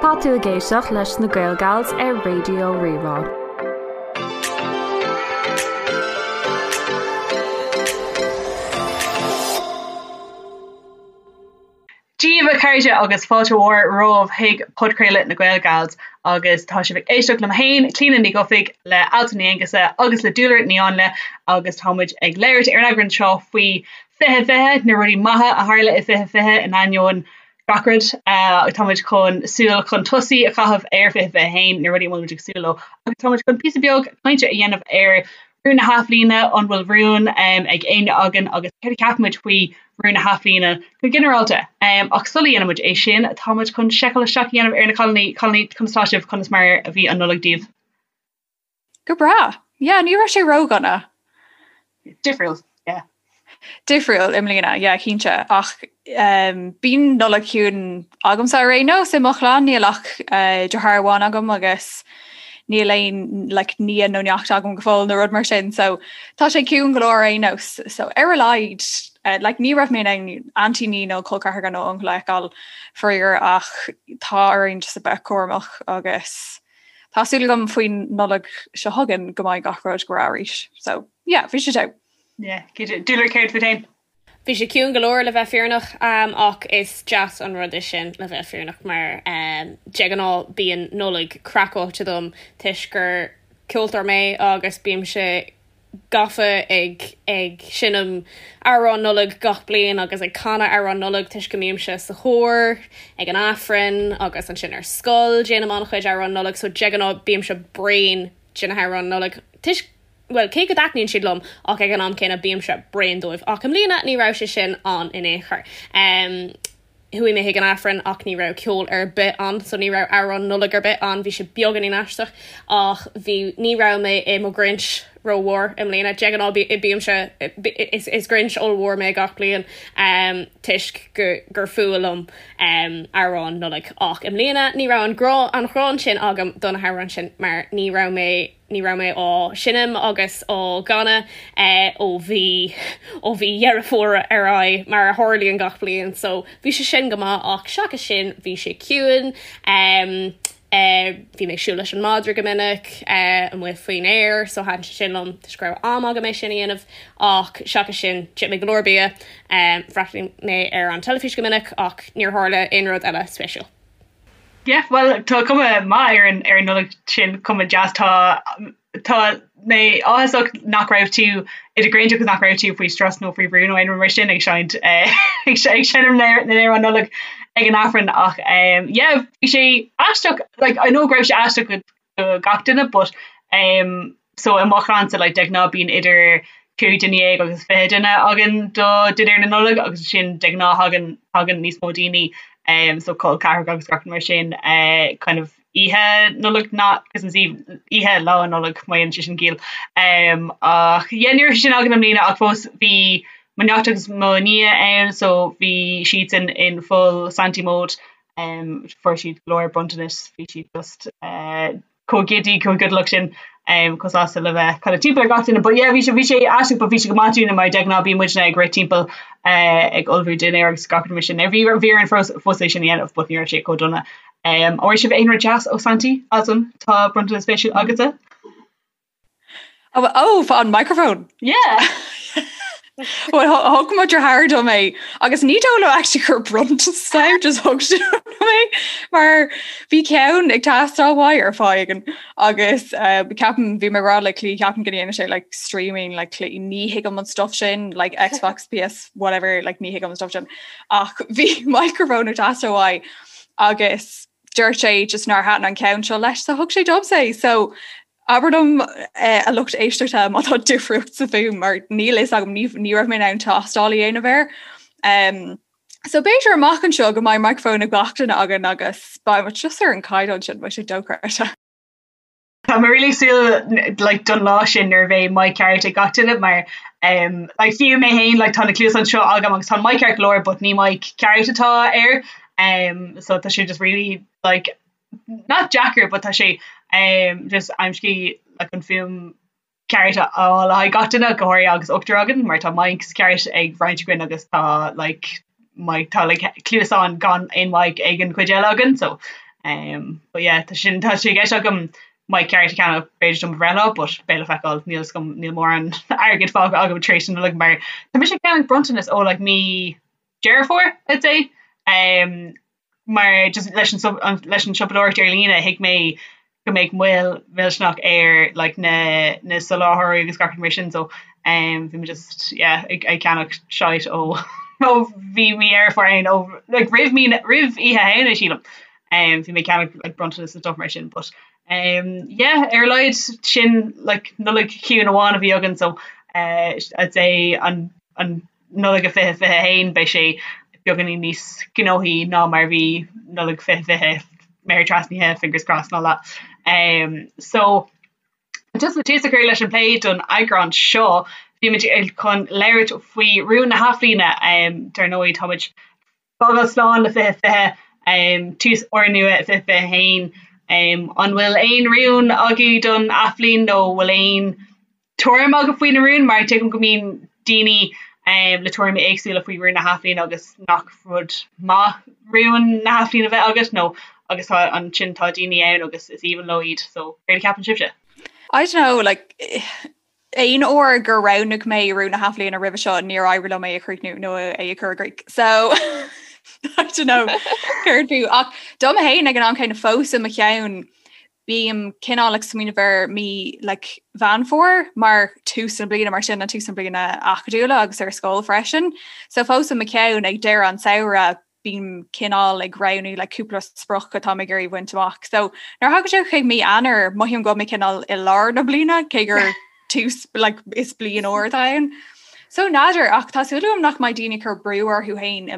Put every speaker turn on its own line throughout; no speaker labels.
Tá tú ag éisteacht leis na Gael Gals ar Raidió Rí-Rá.
Dia daoibh a chairde agus fáilte mhór romhaibh chuig podchraoladh na Gael Gals agus tá sibh ag éisteacht liom féin, Clíona Ní Dhufaigh, le Altan Ní Aonghusa agus le Dúlra Ní Áinle agus tá muid ag labhairt ar an eagrán seo faoi 2020, na rudaí maithe a tharla i 2020 in ainneoin gach rud. Tá muid chun súil chun tosaigh a chaitheamh ar 2021, na rudaí a bhfuil muid ag súil leo agus tá muid chun píosa beag cainte a dhéanamh ar rún na hathbhliana, an bhfuil rún ag éinne againn agus céard a cheapann muid faoi rún na hathbhliana go ginearálta. Ach sula dhéanann muid é sin, tá muid chun seiceáil isteach a dhéanamh ar na cailíní. Cailíní, conas tá sibh? Conas mar a bhí an Nollaig daoibh?
Go breá. Yeah, ní raibh sé ródhona.
Difriúil, yeah.
Difriúil i mbliana, yeah, cinnte. Ach um, bíonn Nollaig chiúin agamsa ar aon nós i mo chlann, níl ach uh, deartháir amháin agam agus níl aon like, nia nó neacht agam go fóill nó rud mar sin, so tá sé ciúin go leor ar aon nós. So ar a laghad, uh, like, ní raibh mé in ann aintíní nó col ceathracha nó uncail a fheiceáil faraor ach tá orainn just a bheith cúramach agus Tá súil agam faoin Nollaig seo chugainn go mbeidh gach rud go breá arís. So, yeah, bhí sé togha.
Yeah, cinnte. Dúlra, céard fút féin?
Bhí sé ciúin go leor le bheith fírinneach ach is deas an rud é sin le bheith fírinneach mar de ghnáth bíonn Nollaig craiceáilte dom toisc gur ceoltóir mé agus bímse gafa ag ag seinm amhráin Nollag gach bliain agus ag canadh amhráin Nollag toisc go mbímse sa chór ag an Aifreann agus ansin ar scoil déanaim an-chuid amhráin Nollag so de ghnáth bímse bréan de na hamhráin Nollag toisc bhuel cé go dtaitníonn siad liom ach ag an am céanna bímse bréan dóibh ach i mbliana ní raibh sé sin ann in aon chor. Um, Chuaigh mé chuig an Aifreann ach ní raibh ceol ar bith ann so ní raibh amhrán Nollag ar bith ann, bhí sé beagáinín aisteach ach bhí, ní raibh mé i mo Ghrinch rómhór i mbliana. De ghnáth bímse, is, is Grinch ollmhór mé gach bliain toisc go, gur fuath liom amhráin Nollag ach i mbliana ní raibh an grá, an ghráin sin agam do na hamhráin sin mar ní raibh mé, Ní raibh mé á seinm agus á gcanadh ó mhí ó mhí Dheireadh Fómhair ar aghaidh, mar a tharlaíonn gach bliain, so bhí sé sin go maith ach seachas sin bhí sé ciúin. Bhí mé ag siúl leis an madra go minic amuigh faoin aer so thaitin sé sin liom toisc go raibh am agam é sin a dhéanamh ach seachas sin d'ith mé go leor bia, bhreathnaigh mé ar an teilifís go minic ach níor tharla aon rud eile spéisiúil.
Yeah, bhuel tá cuma maith ar an ar an Nollaig sin, cuma deas. Tá tá mé áthasach nach raibh tú i do Ghrinch agus nach raibh tú faoi strus nó faoi bhrú nó aon rud mar sin ag seinnt eh, ag seinm na n-amhrán Nollag ag an Aifreann ach um, yeah, bhí sé aisteach like, I know go raibh sé aisteach go do gach duine but um, so i mo chlannsa like, de ghnáth bíonn idir 15 duine agus 20 duine againn do dinnéar na Nollag agus sin de ghnáth thagann tagann níos mó daoine um, so col ceathracha agus gach mar sin uh, kind of oíche Nollag not Christmas Eve oíche lá Nollag má dhéanann sé sin ciall um, ach yeah, ní raibh sin againn i mbliana ach fós bhí mo neacht agus mo nia ann so bhí siadsan in full Santy mode um, fuair siad go leor bronntanas bhí siad just uh, chomh giddy chomh giodalach sin um, chomh sásta le bheith kind of timpeall ar gach duine but yeah bhí sé bhí sé aisteach but bhí sé go maith dúinne mar de ghnáth bíonn muidne ag rith timpeall uh, ag ullmhú dinnéar agus gach rud mar sin. Bhí bhí orainn fós fós é sin a dhéanamh but ní raibh sé chomh dona. Um, an bhfuair sibh aon rud deas ó Santy Altan tá bronntanas spéisiúil agatsa?
Oh, oh, an microphone.
Yeah.
Well, thug mo dheartháir dom é agus ní dóigh liom actually gur bronntanas é just thug sé dom é mar bhí ceann ag teastáil uaidh ar fáth éigin agus uh, ceapaim bhí mé ag rá le Clí ceapaim go ndéanann sé like streaming like Clí ní thuigim an stuff sin like Xbox PS whatever like ní thuigim an stuff sin ach bhí microphone ag teastáil uaidh agus dúirt sé just nár thaitin an ceann seo leis so thug sé domsa é so abair liom eh, a lucht éisteachta má tá difríocht sa fuaim mar níl fhios agam ní ní raibh mé in ann tástáil a dhéanamh air. Um, so b'fhéidir amach anseo go mbeidh microphone ag gach duine againn agus beidh muid just ar an caighdeán sin beidh sé dochreidte.
Tá mé really súil like, don lá sin nuair a bheidh mic ceart ag gach duine mar um, like, fiú mé féin like, tá na cluasáin seo agam agus tá mic ceart go leor but ní mic ceart atá air um, so tá sé just really like, not deacair but tá sé um, just aimsí like, an fuaim ceart a fháil le haghaidh gach duine go háirithe agus ochtar againn mar tá mics ceart ag roinnt againn agus tá like, mic tá like, cluasáin gan aon mic ag an chuid eile againn so. Um, but yeah, tá sin tá sé i gceist agam mic ceart a cheannach b'fhéidir do mo bhreithlá, but beidh le feiceáil, níl 'fhios agam, níl mórán airgid fágtha agam tar éis na Nollag mar tá mise ag ceannach bronntanas ó like mí Deireadh Fómhair, I'd say. Um, mar just leis an leis an siopadóireacht ar líne thuig mé go mbeadh moill mhillteanach ar like na na soláthróirí agus gach rud mar sin so um, bhí mé just yeah ag ag ceannach shite ó ó bhí mí Dheireadh Fómhair ann ó like roimh mí roimh Oíche Shamhna sílim um, bhí mé ag ceannach like bronntanas and stuff mar sin but um, yeah ar a laghad sin like Nollaig chiúin amháin a bhí againn so uh, I'd say an an Nollaig a 2021 beidh sé beagáinín níos gnóthaí ná mar a bhí Nollaig 2020, méar trasnaithe, fingers crossed and all that. Um, so just le tús a chur leis an plé don eagrán seo, bhí muid chun labhairt faoi rúin na hathbhliana. Um, dar ndóigh táimid fágáil slán le 2020, um, tús úrnua 2021. Um, an bhfuil aon rún agaibh don athbhliain nó bhfuil aon tuairim agaibh faoi na rúin? Mar tuigim go mbíonn daoine um, le tuairimí éagsúla faoi rúin na hathbhliana agus nach rud maith rúin na hathbhliana bheith agat nó agus tá ansin tá daoine ann agus is aoibhinn leo iad so céard a cheapann sibhse?
I don't know, like aon uair gur roghnaigh mé rún na hathbhliana roimhe seo níor éirigh liom é a chríochnú nó é a chur i gcrích. So I don't know céard fiú ach dom féin ag an am céanna fós i mo cheann bím cineál ag smaoineamh ar mí like, Mheán Fómhair mar tús na bliana mar sin an tús na bliana acadúla agus ar scoil freisin. So fós i mo cheann ag deireadh an samhradh bím cineál ag roghnú like, cúpla sprioc atá mé ag iarraidh bhaint amach. So nuair a thagann sé chuig mí Eanáir mothaím go bhfuil mé cineál i lár na bliana cé gur tús like, is bliain úr atá ann. So n'fheadar ach tá súil agam nach mbeidh daoine ag cur brú orthu féin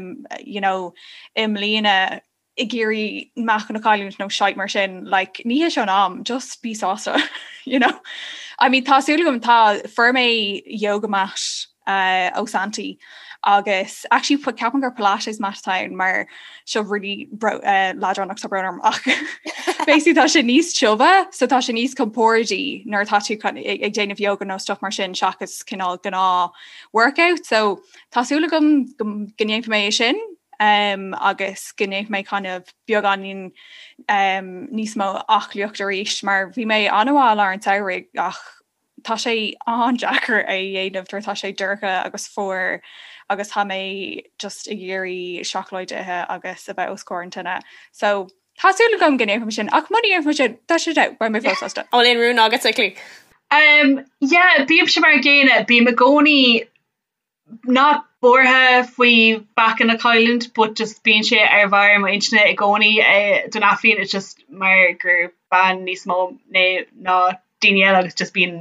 you know, i mbliana ag iarraidh meáchan a chailliúint nó shite mar sin, like, ní hé seo an am, just bí sásta, you know. I mean, tá súil agam tá fuair mé yoga mat uh, ó Santaí agus actually ceapaim gur Pilates mat atá ann mar seo really uh, leadránach tá brón orm ach basically tá sé níos tiubhe so tá sé níos compordaí nuair atá tú ag déanamh yoga nó stuff mar sin seachas cineál gnáth workout so tá súil agam go ndéanfaidh mé é sin um, agus go ndéanfaidh mé kind of beagáinín um, níos mó aclaíocht arís mar bhí mé an-mhaith i lár an tsamhraidh ach tá sé an-deacair é a dhéanamh nuair atá sé dorcha agus fuar agus tá mé just ag iarraidh seacláid a ithe agus a bheith os comhair an tine. So tá súil agam go ndéanfaidh mé sin ach muna ndéanfaidh mé sin tá sé beidh mé fós sásta.
An bhfuil aon rún agat a Clí?
Um, yeah, bímse mar an gcéanna, bím i gcónaí not buartha faoi mheáchan a chailliúint but just bíonn sé ar bharr mo intinne i gcónaí don athbhliain it's just mar gur bean níos mó mé ná daoine eile agus just bíonn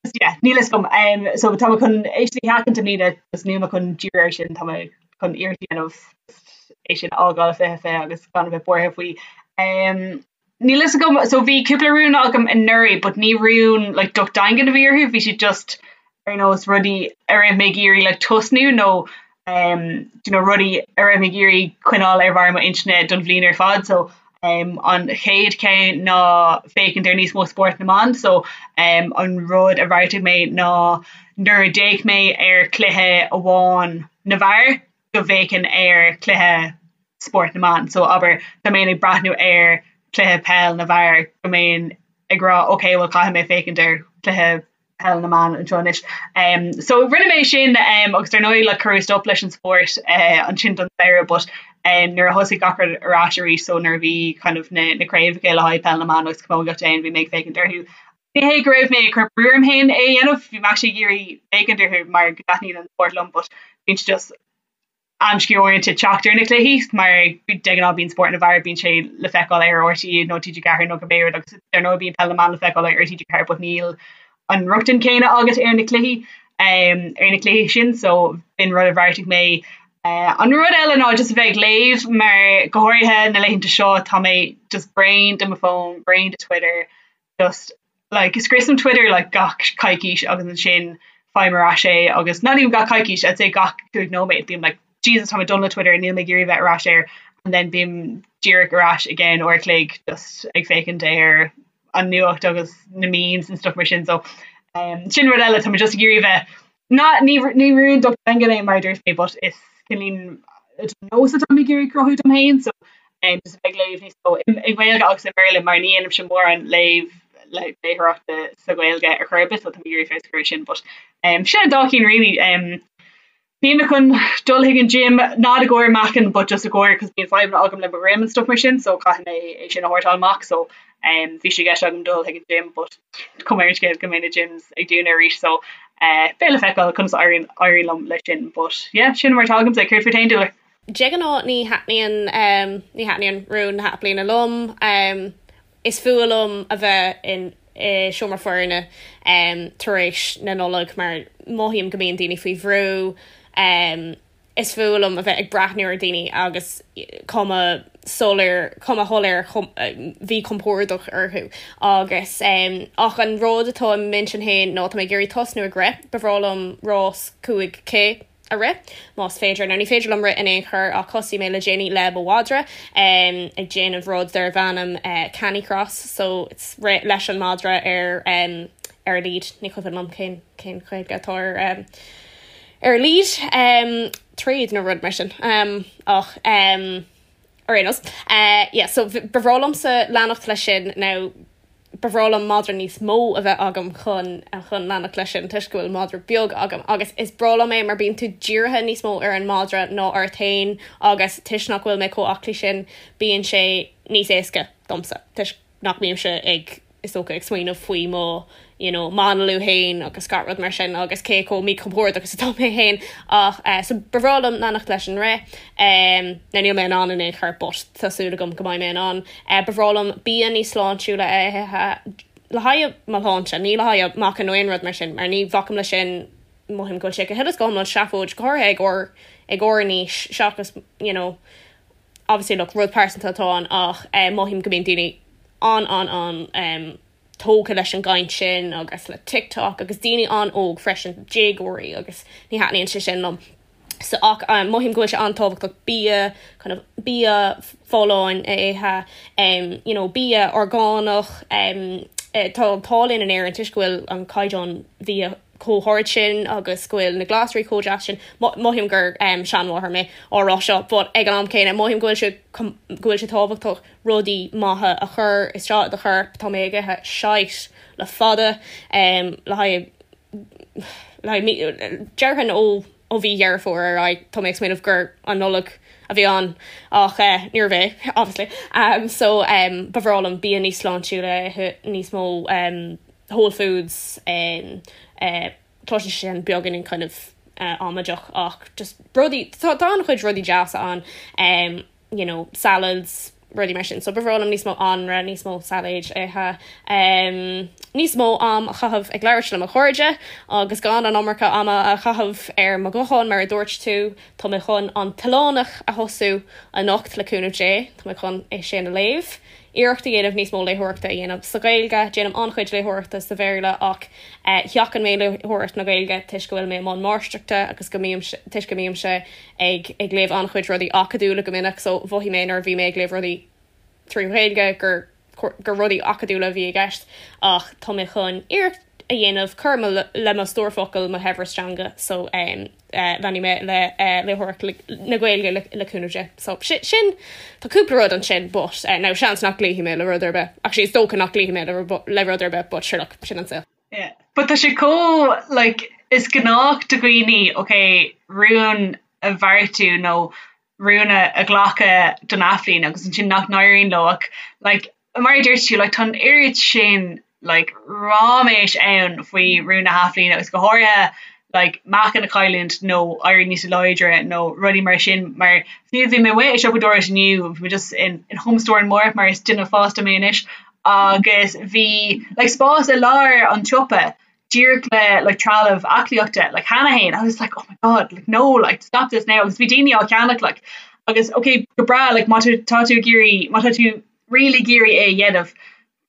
just yeah níl fhios agam um, so tá mé chun é sin a sheachaint i mbliana just níl mé chun díriú air sin tá mé chun iarracht a dhéanamh é sin a fhágáil 2020 agus gan a bheith buartha faoi um, Níl fhios agam, so bhí cúpla rún agam anuraidh but ní rún like docht daingean a bhí orthu, bhí siad just ar nós rudaí a raibh mé ag iarraidh like tosnú nó um do you know rudaí a raibh mé ag iarraidh coinneáil ar bharr mo intinne don bhliain ar fad so um an chéad cheann ná féachaint ar níos mó spórt na mban so um an rud a bheartaigh mé ná nuair a d'fhéach mé ar chluiche amháin na bhfear go bhféachfainn ar chluiche spórt na mban. So abair dá mbeinn ag breathnú ar chluiche peil na bhfear go mbeinn ag rá ok well caithfidh mé féachaint ar chluiche peil na mban anseo anois. Um, so rinne mé sin um, agus dar ndóigh like, cuireadh stop leis an spórt uh, ansin don samhradh but um, nuair a thosaigh gach rud ar ais arís so nuair a bhí kind of na, na craobhacha le haghaidh peil na mban agus camógaíocht ann bhí mé ag féachaint orthu. Ní hé go raibh mé ag cur brú orm féin é a dhéanamh, bhí mé actually ag iarraidh féachaint orthu mar go dtaitníonn an spórt liom but bíonn sé just amscaí uaireanta teacht ar na cluichí mar de ghnáth bíonn spórt na bhfear bíonn sé le feiceáil ar RTÉ nó TG4 nó cibé rud agus dar ndóigh bíonn peil na mban le feiceáil ar TG4 but níl an rochtain céanna agat ar na cluichí um, ar na cluichí sin so b'in rud a bheartaigh mé. Uh, an rud eile ná just a bheith ag léamh mar go háirithe na laethanta seo tá mé just bréan de mo fón, bréan de Twitter, just like scriosaim Twitter like gach coicís agus ansin faighim ar ais é agus not even gach coicís I'd say gach 5 nóiméad bím like Jesus tá mé done le Twitter níl mé ag iarraidh bheith ar ais air and then bím díreach ar ais i gceann uair a chloig just ag féachaint ar an nuacht agus na memes and stuff mar sin so um, sin rud eile tá mé just ag iarraidh bheith ná ní ní rún docht daingean é mar a dúirt mé but is cineál nós atá mé ag iarraidh cruthú dom féin so. Just a bheith ag léamh níos mó i nGaeilge agus i mBéarla mar ní dhéanaimse mórán léamh léitheoireachta sa Ghaeilge ar chor ar bith so tá mé ag iarraidh feabhas a chur air sin but sin an dá cinn really. Bhí mé chun dul chuig an gym not i gcomhair meáchan but just i gcomhair cos bíonn fadhbanna agam le mo dhroim and stuff mar sin so caithfidh mé é sin a shórtáil amach so bhí sé i gceist agam dul chuig an gym but cuma ar an scéal go mbeidh na gyms ag dúnadh arís so beidh le feiceáil conas a éiríonn éiríonn liom leis sin but yeah sin mar atá agamsa. Céard fút féin Dúlra?
De ghnáth ní thaitníonn ní thaitníonn rún na hathbhliana liom. Is fuath liom a bheith in i seomra foirne tar éis na Nollag mar mothaím go mbíonn daoine faoi bhrú. Is fuath liom a bheith ag breathnú ar dhaoine agus cuma soiléir cuma shoiléir mhíchompordach orthu agus ach an rud atá i m'intinn féin ná tá mé ag iarraidh tosnú ag rith. Ba bhreá liom rás 5K a rith, más féidir. Now ní féidir liom rith in aon chor ach thosaigh mé le déanaí le mo mhadra ag déanamh rud darbh ainm canicross so it's rith leis an madra ar ar lead, ní cuimhin liom cén cén Ghaeilge atá ar ar lead tréad nó rud mar sin ach ar aon nós yeah so ba bhreá liomsa leanacht leis sin now Ba bhreá liom madra níos mó a bheith agam chun chun leanacht leis sin toisc go bhfuil madra beag agam agus is breá liom é mar bíonn tú dírithe níos mó ar an madra ná ort féin agus toisc nach bhfuil mé chomh aclaí sin bíonn sé níos éasca domsa toisc nach mbímse ag is dócha ag smaoineamh faoi mo you know m'análú féin agus gach rud mar sin agus cé chomh míchompordach is atá mé féin ach eh so ba bhreá liom leanacht leis an rith em now níl mé in ann in aon chor but tá súil agam go mbeidh mé in ann eh ba bhreá liom bia níos sláintiúla a ithe le haghaidh mo shláinte ní le haghaidh meáchan nó aon rud mar sin mar ní bhacaim leis sin mothaím go bhfuil sé go huile is go hiomlán seafóid go háirithe ag ár ag ár n-aois seachas you know obviously look rud pearsanta atá ann ach eh mothaím go mbíonn daoine an an an em tógtha leis an gcaint sin agus le TikTok agus daoine an-óg freisin, déagóirí agus ní thaitníonn sé sin liom. So ach mothaím go bhfuil sé an-tábhachtach bia kind of bia folláin a ithe, um, you know, bia orgánach, um, tá an t-ádh linn in Éirinn toisc go bhfuil an caighdeán bhia chomh hard sin agus go bhfuil na glasraí chomh deas sin. Mothaím gur um, seanmháthair mé á rá seo, but ag an am céanna mothaím go bhfuil sé go bhfuil sé tábhachtach rudaí maithe a chur isteach i do chorp. Tá mé ag ithe shite le fada le haghaidh le haghaidh déarfainn ó ó mhí Dheireadh Fómhair ar aghaidh. Tá mé ag smaoineamh gur an Nollaig a bhí ann ach níorbh é obviously. So ba bhreá liom bia níos sláintiúla a ithe, níos mó whole foods, cloiseann sé sin beagáinín kind of amaideach ach just rudaí tá an-chuid rudaí deasa ann. you know, salads, rudaí mar sin. So ba bhreá liom níos mó anraith, níos mó sailéid a ithe, um, níos mó am a chaitheamh ag labhairt le mo chairde agus gan an iomarca ama a chaitheamh ar mo ghuthán mar a dúirt tú. Tá mé chun An tOileánach a thosú anocht le cúnamh Dé. Tá mé chun é sin a léamh. Iarracht a dhéanamh níos mó léitheoireachta a dhéanamh sa Ghaeilge. Déanaim an-chuid léitheoireachta sa Bhéarla ach sheachain mé léitheoireacht na Gaeilge toisc go bhfuil mé i mbun máistreachta agus go mbím toisc go mbímse ag ag léamh an-chuid rudaí acadúla go minic so mhothaigh mé nuair a bhí mé ag léamh rudaí trí Ghaeilge gur gur rudaí acadúla a bhí i gceist ach tá mé chun iarracht a dhéanamh cur le mo stór focal, mo shaibhreas teanga so leanfaidh mé le léitheoireacht na Gaeilge le cúnamh Dé. So sin tá cúpla rud ansin but now seans nach gcloífidh mé le rud ar bith. Actually is dócha nach gcloífidh mé le rud ar bith but sure look sin an saol.
Yeah. But tá sé chomh like is gnách do dhaoine ok rún a bheartú nó rún a ghlacadh don athbhliain agus ansin nach n-éiríonn leo ach like mar a dúirt tú like tá an oiread sin like ráiméis ann faoi rún na hathbhliana agus go háirithe like meáchan a chailliúint nó éirí níos láidre nó rudaí mar sin mar fiú bhí mé amuigh ag siopadóireacht inniu bhí mé just in in Home Store in Moore mar is duine fásta mé anois agus bhí like spás i lár an tsiopa díreach le like trealamh aclaíochta like cheana féin I was like oh my god like no like stop this now agus bhí daoine á cheannach like agus okay go breá like má tá tú ag iarraidh má tá tú really ag iarraidh é a dhéanamh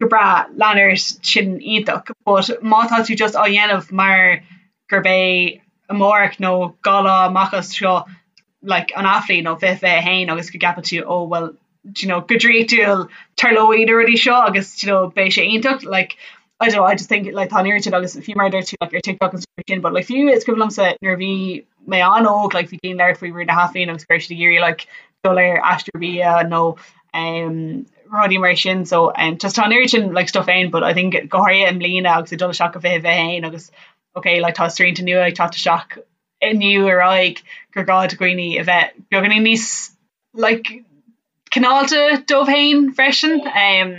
go breá lean ort sin iontach but má tá tú just á dhéanamh mar gurb é amárach nó 2 lá amach as seo like an athbhliain nó 2021 agus go gceapann tú oh well do you know go draíochtúil tarlóidh na rudaí seo agus do you know beidh sé iontach like I don't know I just think like tá an oiread sin agus fiú mar a dúirt tú like ar TikTok and stuff sin but like fiú is cuimhin liomsa nuair a bhí mé an-óg like bhí daoine ag labhairt faoi rún na hathbhliana agus go raibh siad ag iarraidh like dul ar aistear bia nó. um, rudaí mar sin so um, just tá an oiread sin like stuff ann but I think go háirithe i mbliana agus ag dul isteach go 2021 agus okay like tá srianta nua ag teacht isteach inniu ar aghaidh gur gá do dhaoine a bheith beagáinín níos like cineálta dóibh féin freisin um,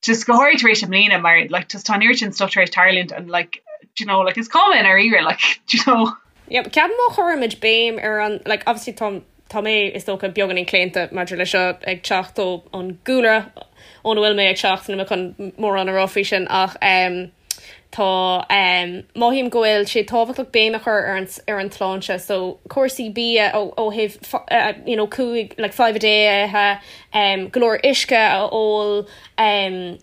just go háirithe tar éis i mbliana mar like just tá an oiread sin stuff tar éis tarlúint and like do you know like is cuma i ndáiríre like do you know.
Yeah, ceapaim má chuirimid béim ar an like obviously tá tá mé is dócha beagáinín claonta maidir le seo ag teacht ó an gcúlra óna bhfuil mé ag teacht níl mé chun mórán a rá faoi sin ach um, Tá, mothaím go bhfuil sé tábhachtach béim a chur ar an ar an tsláinte so cúrsaí bia ó ó thaobh you know cúig like five a day a ithe, go leor uisce a ól,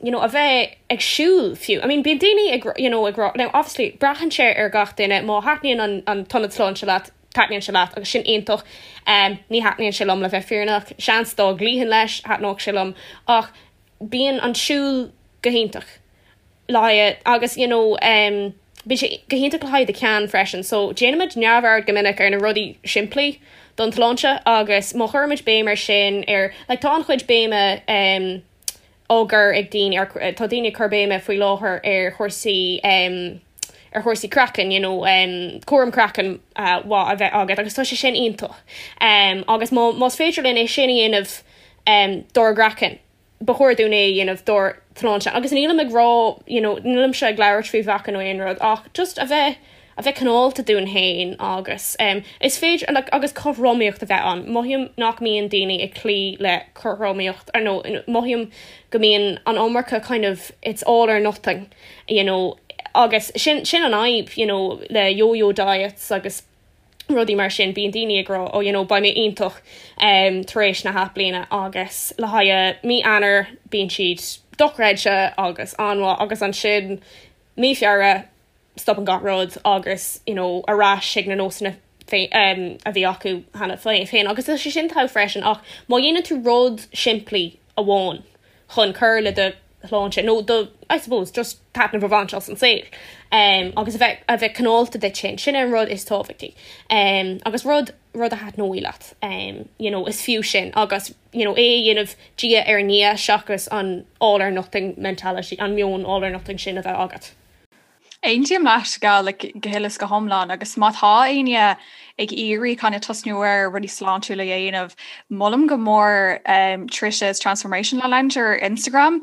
you know a bheith ag siúl fiú. I mean bíonn daoine ag you know ag rá now obviously braitheann sé ar gach duine má thaitníonn an an t-ionad sláinte leat taitníonn sé leat agus sin iontach. Ní thaitníonn sé liom le bheith fírinneach, seans dá gcloífinn leis thaitneodh sé liom ach bíonn an siúl go hiontach. le haghaidh agus you know um bíonn sé go hiontach le haghaidh do cheann freisin so déanaimid neamhaird go minic ar na rudaí simplí don tsláinte agus má chuirimid béim ar sin ar like tá an-chuid béime um á gcur ag daoine ar tá daoine ag cur béime faoi láthair ar chúrsaí um ar chúrsaí craicinn you know um cúram craicinn uh, mhaith a bheith agat agus tá sé sin iontach um agus má más féidir linn é sin a dhéanamh um dár gcraiceann ba chóir dúinn é a dhéanamh dár tsláinte agus nílim ag rá you know nílimse ag labhairt faoi mheáchan nó aon rud ach just a bheith a bheith cineálta dúinn féin agus um, is féidir like, agus cothromaíocht a bheith ann. Mothaím nach mbíonn daoine ag cloí le cothromaíocht ar nó mothaím go mbíonn an iomarca kind of it's all or nothing you know agus sin sin an fhadhb you know le yo-yo diets agus rudaí mar sin, bíonn daoine ag rá oh you know beidh mé iontach um, tar éis na hathbhliana agus le haghaidh mí Eanáir bíonn siad dochreidte agus an-mhaith agus ansin mí Feabhra stopann gach rud agus you know ar ais ag na nósanna um, a bhí acu cheana féin agus tá sé sin togha freisin ach má dhéanann tú rud simplí amháin chun cur le do shláinte nó do, I suppose, just taitneamh a bhaint as an saol um, agus a bheith, a bheith cineálta duit féin, sin an rud is tábhachtaí um, agus rud, rud a thaitneoidh leat um, you know, is fiú sin agus you know, é a dhéanamh diaidh ar ndiaidh seachas an all or nothing mentality, an meon all or nothing sin a bheith agat.
Aontaím leat go like, go huile is go hiomlán agus má tá éinne ag iarraidh kind of tosnú ar rudaí sláintiúla a dhéanamh, molaim go mór um, Trisha's Transformation Lounge ar Instagram.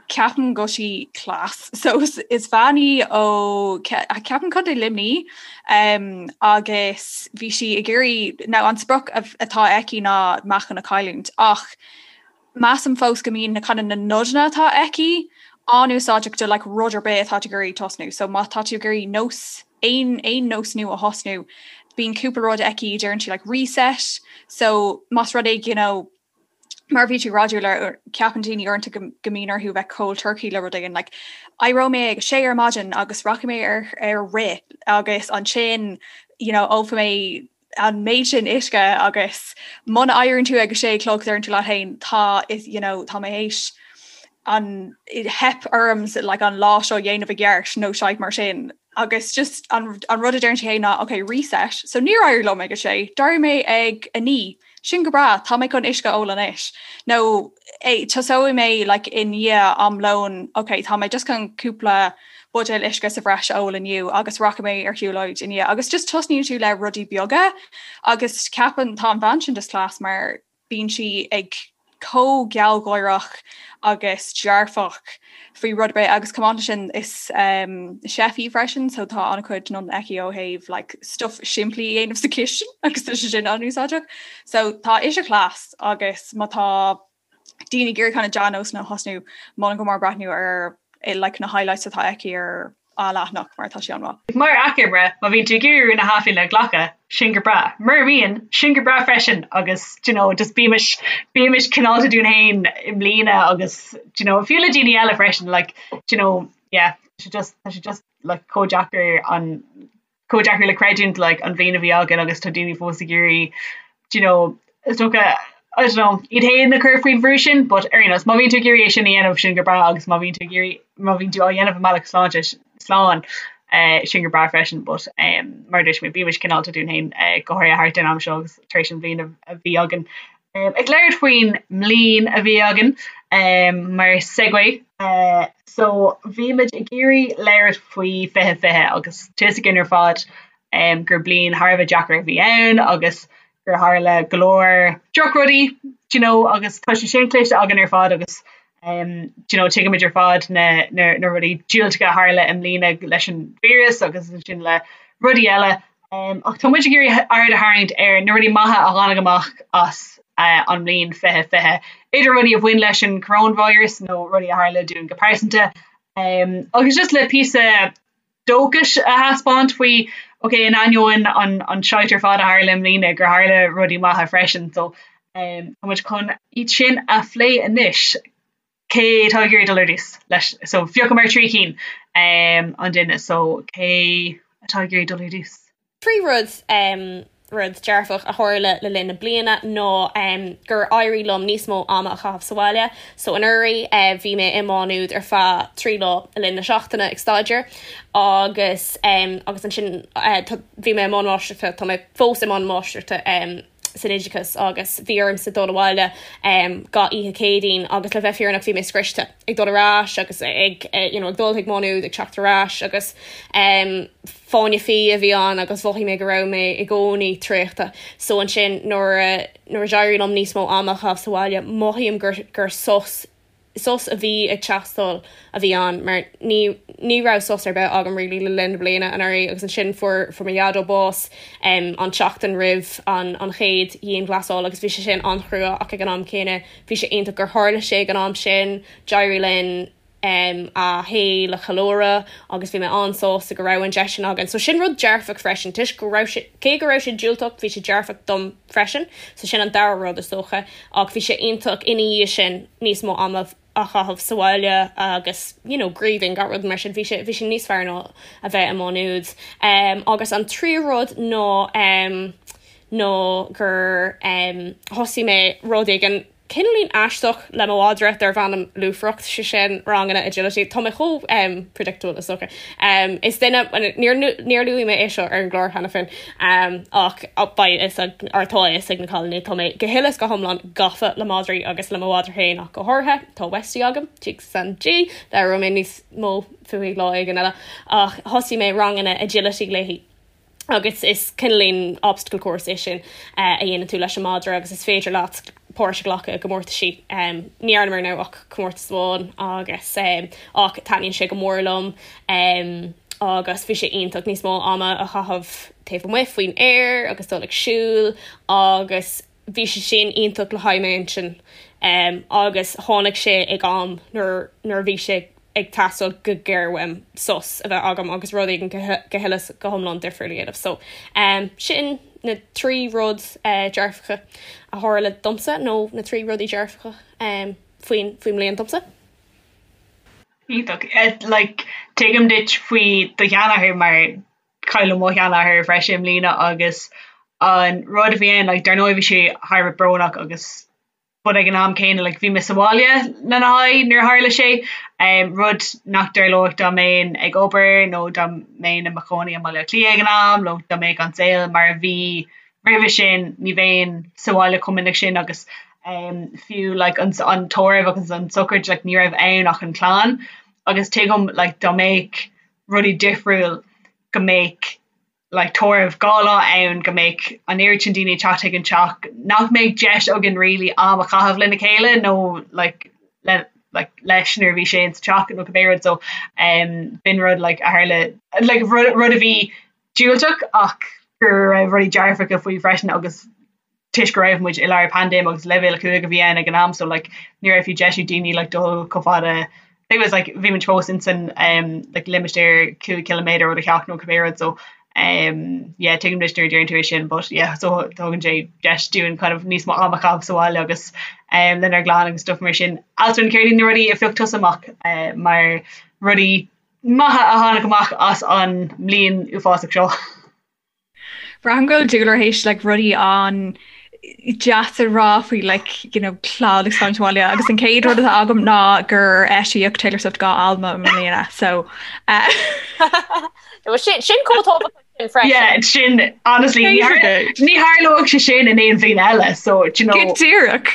Ceapaim go bhfuil sí class. So is, is bean í ó ceapaim Contae Luimnigh um, agus bhí sí ag iarraidh now an sprioc atá aici ná meáchan a chailliúint ach Measaim fós go mbíonn na kind of na nodanna atá aici an-úsáideach do like rud ar bith atá tú ag iarraidh tosnú. So má tá tú ag iarraidh nós aon aon nós nua a thosnú, bíonn cúpla rud aici deireann sí like reset. So más rud é you know mar bhí tú ag rá Julia ceapann daoine uaireanta go go mbíonn orthu bheith cold turkey le rud éigin like éireoidh mé ag a sé ar maidin agus rachaidh mé ar ar rith agus ansin you know ólfaidh mé an méid sin uisce agus muna éiríonn tú ag a sé a chlog deireann tú leat féin tá is you know tá mé théis an theip orm like an lá seo dhéanamh i gceart nó shite mar sin agus just an, an rud a deireann sí féin ná ok reset so níor éirigh liom ag a sé d'éirigh mé ag a naoi sin go breá tá mé chun uisce a ól anois nó tosóidh mé like i ndiaidh am lóin ok tá mé just chun cúpla buidéal uisce sa bhreis a ól inniu agus rachaidh mé ar shiúlóid i ndiaidh agus just tosnaíonn tú le rudaí beaga agus ceapaim tá an bhean sin just class mar bíonn sí ag chomh gealgháireach agus dearfach faoi rud ar bith agus chomh maith leis sin is um, chef í freisin so tá an-chuid nodanna aici ó thaobh like, stuff simplí a dhéanamh sa chistin agus tá sé sin an-úsáideach. So tá ise class agus má tá daoine ag iarraidh kind of dea-nósanna a thosnú, molaim go mór breathnú ar like na highlights atá aici ar a leathanach mar tá sé an-mhaith.
Mar achoimre, má bhíonn tú ag iarraidh rún na hathbhliana a ghlacadh, sin go breá. Mura mbíonn, sin go breá freisin agus do you know just bímis bímis cineálta dúinn féin i mbliana agus do you know fiú le daoine eile freisin like do you know yeah tá sé just tá sé just like chomh deacair an chomh deacair le creidiúint like an bhliain a bhí againn agus tá daoine fós ag iarraidh do you know is dócha I don't know iad féin a chur faoin bhrú sin but ar aon nós má bhíonn tú ag iarraidh é sin a dhéanamh sin go breá agus má bhíonn tú ag iarraidh má bhíonn tú á dhéanamh i mbealach sláinte slán eh, sin go breá freisin but um, mar a dúirt mé bímis cineálta dúinn féin eh, go háirithe thart ar an am seo agus tar éis an bhliain a bhí againn. Ag labhairt faoin mbliain a bhí againn mar segue, so bhí muid ag iarraidh labhairt faoi 2020 agus tá fhios againn ar fad gur bliain thar a bheith deacair a bhí ann agus gur tharla go leor drochrudaí do you know agus tá sé sin cloiste againn ar fad agus do you know tuigimid ar fad na na na rudaí diúltacha a tharla i mbliana leis an víreas agus ansin le rudaí eile. Ach tá muid ag iarraidh aird a tharraingt ar na rudaí maithe a tháinig amach as an mbliain 2020, idir rudaí a bhain leis an coronavirus nó rudaí a tharla dúinn go pearsanta, agus just le píosa dóchais a thaispeáint faoi, ok, in ainneoin an an shite ar fad a tharla i mbliana, gur tharla rudaí maithe freisin. So tá muid chun iad sin a phlé anois. Cé atá ag iarraidh dul ar dtús leis? So phiocamar 3 cinn an duine so cé atá ag iarraidh dul ar dtús?
3 rud rud dearfach a tharla le linn na bliana ná gur éirigh liom níos mó ama a chaitheamh sa bhaile. So anuraidh bhí mé i Má Nuad ar feadh 3 lá le linn na seachtaine ag staidéar agus agus ansin bhí mé i mbun máistreachta, tá mé fós i mbun máistreachta san oideachas agus bhí ormsa dul abhaile gach oíche Céadaoin agus le bheith fírinneach bhí mé scriosta ag dul ar ais agus ag you know ag dul chuig Má Nuad ag teacht ar ais agus fáinne fí a bhí ann agus mhothaigh mé go raibh mé i gcónaí traochta. So ansin nuair a nuair a d'éirigh liom níos mó ama a chaitheamh sa bhaile mothaím gur gur sos sos a bhí ag teastáil a bhí ann mar ní ní raibh sos ar bith agam really le linn na bliana anuraidh agus ansin fuair fuair mo dhaideo bás um, an tseachtain roimh an an chéad dhianghlasáil agus bhí sé sin an-chrua ach ag an am céanna bhí sé iontach gur tharla sé ag an am sin d'éirigh linn um, a shaol a cheiliúradh agus bhí mé an-sásta go raibh an deis sin againn. So sin rud dearfach freisin toisc go raibh sé cé go raibh sé diúltach bhí sé dearfach dom freisin, so sin an dara rud is dócha, ach bhí sé iontach ina dhiaidh sin níos mó ama a chaitheamh sa bhaile agus you know grieving gach rud mar sin, bhí sé bhí sé níos fearr ná a bheith i Má Nuad. Um, agus an tríú rud ná um, ná gur um, thosaigh mé rud éigin cineáilín aisteach le mo mhadra darb ainm Lúfaireacht, sé sin ranganna agility. Tá mé chomh um, predictable is dócha. Um, is duine, níor, níor luaigh mé é seo ar an gclár cheana féin, um, ach beidh fhios ag, or tá fhios ag na cailíní, tá mé go huile is go hiomlán gafa le madraí agus le mo mhadra féin ach go háirithe. Tá Westie agam, Jigs and G, labhróidh mé níos mó fúithi lá éigin eile, ach thosaigh mé ranganna agility léi. agus is cineáilín obstacle course é sin a dhéanann tú leis an madra agus is féidir leat páirt a ghlacadh i gcomórtaisí. Ní dhearnamar now ach comórtas amháin agus ach taitníonn sé go mór liom agus bhí sé iontach níos mó ama a chaitheamh taobh amuigh faoin aer agus dul ag siúl agus bhí sé sin iontach le haghaidh m'intinn agus tháinig sé ag am nuair nuair a bhí sé ag teastáil go géar uaim sos a bheith agam agus rud éigin go huile is go hiomlán difriúil a dhéanamh. So sin na trí rud dearfacha a tharla domsa nó na trí rudaí dearfacha faoin faoin mbliain domsa.
Iontach. Like tuigim duit faoi do sheanathair mar cailleadh mo sheanathair freisin i mbliana agus an rud a bhí ann like dar ndóigh bhí sé thar a bheith brónach agus but ag an am céanna like bhí mé sa bhaile lena haghaidh nuair a tharla sé um, rud nach dtarlódh dá mbeinn ag obair nó dá mbeinn i mo chónaí i mBaile Átha Cliath ag an am nó dá mbeadh an saol mar a bhí roimhe sin ní bheinn sa bhaile chomh minic sin agus um, fiú like an, an tórramh agus an sochraid like ní raibh ann ach an clann agus tuigim like dá mbeadh rudaí difriúil go mbeadh like tórramh 2 lá ann go mbeadh an oiread sin daoine ag teacht chuig an teach nach mbeadh deis againn really am a chaitheamh lena chéile nó like le like leis nuair a bhí sé insa teach nó cibé rud so um b'in rud like a tharla like rud rud a bhí diúltach ach go raibh rudaí dearfacha faoi freisin agus toisc go raibh muid i lár paindéim agus leibhéal 5 a bhí ann ag an am so like ní raibh fiú deis ag daoine like dul chomh fada I think it was like bhí muid fós in san um like limistéar 5 ciliméadar ó do theach nó cibé rud so um yeah tuigim duit nuair a deireann tú é sin but yeah so tugann sé deis dúinn kind of níos mó am a chaitheamh sa bhaile agus um lenár gclann agus stuff mar sin. Alswyn céard iad na rudaí a phioc tusa amach uh, mar rudaí maithe a tháinig amach as an mbliain uafásach seo?
Braithim go bhfuil Dúlra théis like rudaí an-deas a rá faoi like you know clann agus fanacht abhaile agus an chéad rud atá agam ná gur eisíodh Taylor Swift 2 albam i mbliana so uh,
sin sin chomh tábhachtach.
Yeah, sin honestly ní tharlódh sé sin in aon bhliain eile so do you know.
Go díreach.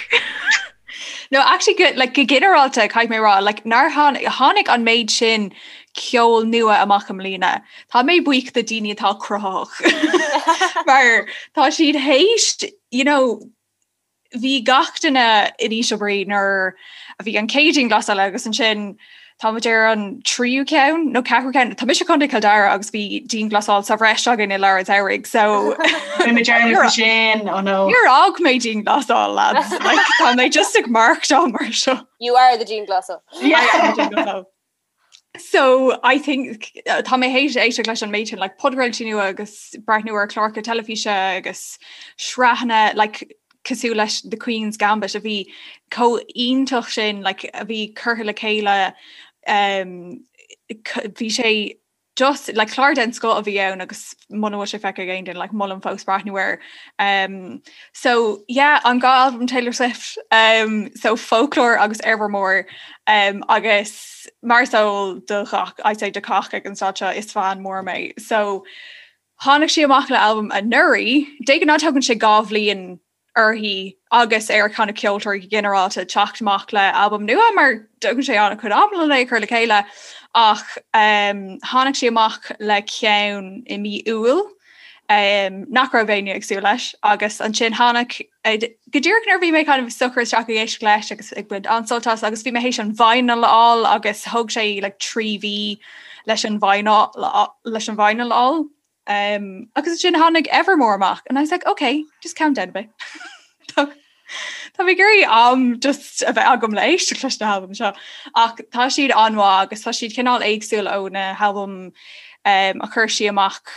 No actually go, like, go ginearálta caithfidh mé rá like, nár tháinig an méid sin ceol nua amach i mbliana. Tá mé buíoch do daoine atá cruthaitheach mar tá siad théis you know, bhí gach duine in ísle brí nuair a bhí an chéad dianghlasáil agus ansin tá muid ar an tríú ceann nó ceathrú ceann. Tá mise i gContae Chill Dara agus bhí dianghlasáil sa bhreis againn i lár an tsamhraidh so
sin oh no.
Níor fhág mé dianghlasáil lads like, tá mé just ag maireachtáil mar seo.
You are the dianghlasáil.
Yeah. So I think tá mé théis éisteacht leis an méid sin like podchraoltaí nua agus breathnú ar chláracha teilifíse agus sraitheanna like cosúil leis The Queen's Gambit a bhí chomh iontach sin like a bhí curtha le chéile um, bhí sé just like clár den scoth a bhí ann agus muna bhfuil sé feicthe ag aon duine like molaim fós breathnú air. Um, so yeah, an dá albam Taylor Swift um, so Folklore agus Evermore um, agus mar is eol do ghach I'd say do cách ag an staid seo is fan mór mé. So tháinig sí amach le albam anuraidh, de ghnáth tógann sé 2 bhliain uirthi agus ar kind of ceoltóirí go ginearálta teacht amach le albam nua mar tógann sé an-chuid ama le é a chur le chéile ach um, tháinig sí amach le ceann i mí Iúil um, nach raibh éinne ag súil leis agus ansin tháinig eh, go díreach nuair bhí mé kind of socraithe isteach ag éisteacht leis agus ag baint an-sult as agus bhí mé théis an vinyl a fháil agus thóg sé like, 3 mhí leis an vinyl leis an vinyl a fháil Um, agus ansin tháinig Evermore amach and I was like, okay, just calm down a bit. Tá tá mé ag iarraidh am just a bheith agam le éisteacht leis na halbaim seo. Ach tá siad an-mhaith agus tá siad cineál éagsúil ó na halbaim um, a chuir sí amach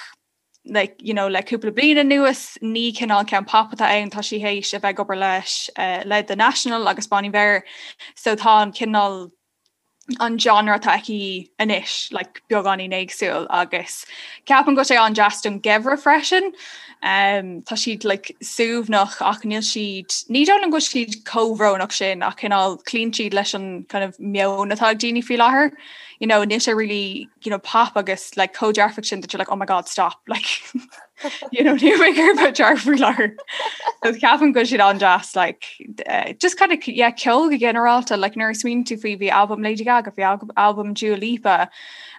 like, you know, le cúpla bliain anuas ní cineál ceann pop atá ann tá sí théis a bheith ag obair leis uh, le The National agus Bon Iver so tá an cineál an genre atá aici anois like, beagáinín éagsúil agus ceapaim go bhfuil sé an-deas don gheimhreadh freisin. Um, tá siad like, suaimhneach ach níl siad ní dóigh liom go bhfuil siad chomh brónach sin ach cineál cloíonn siad leis an kind of meon atá ag daoine faoi láthair. You know, níl sé really you know, pop agus like, chomh dearfach sin that you're like, oh my god, stop like, you know, níl mé ag iarraidh bheith dearfach faoi láthair. So ceapaim go bhfuil siad an-deas like, uh, just kind of yeah, ceol go ginearálta like, nuair a smaoiníonn tú faoi bhí albam Lady Gaga, bhí albam Dua Lipa,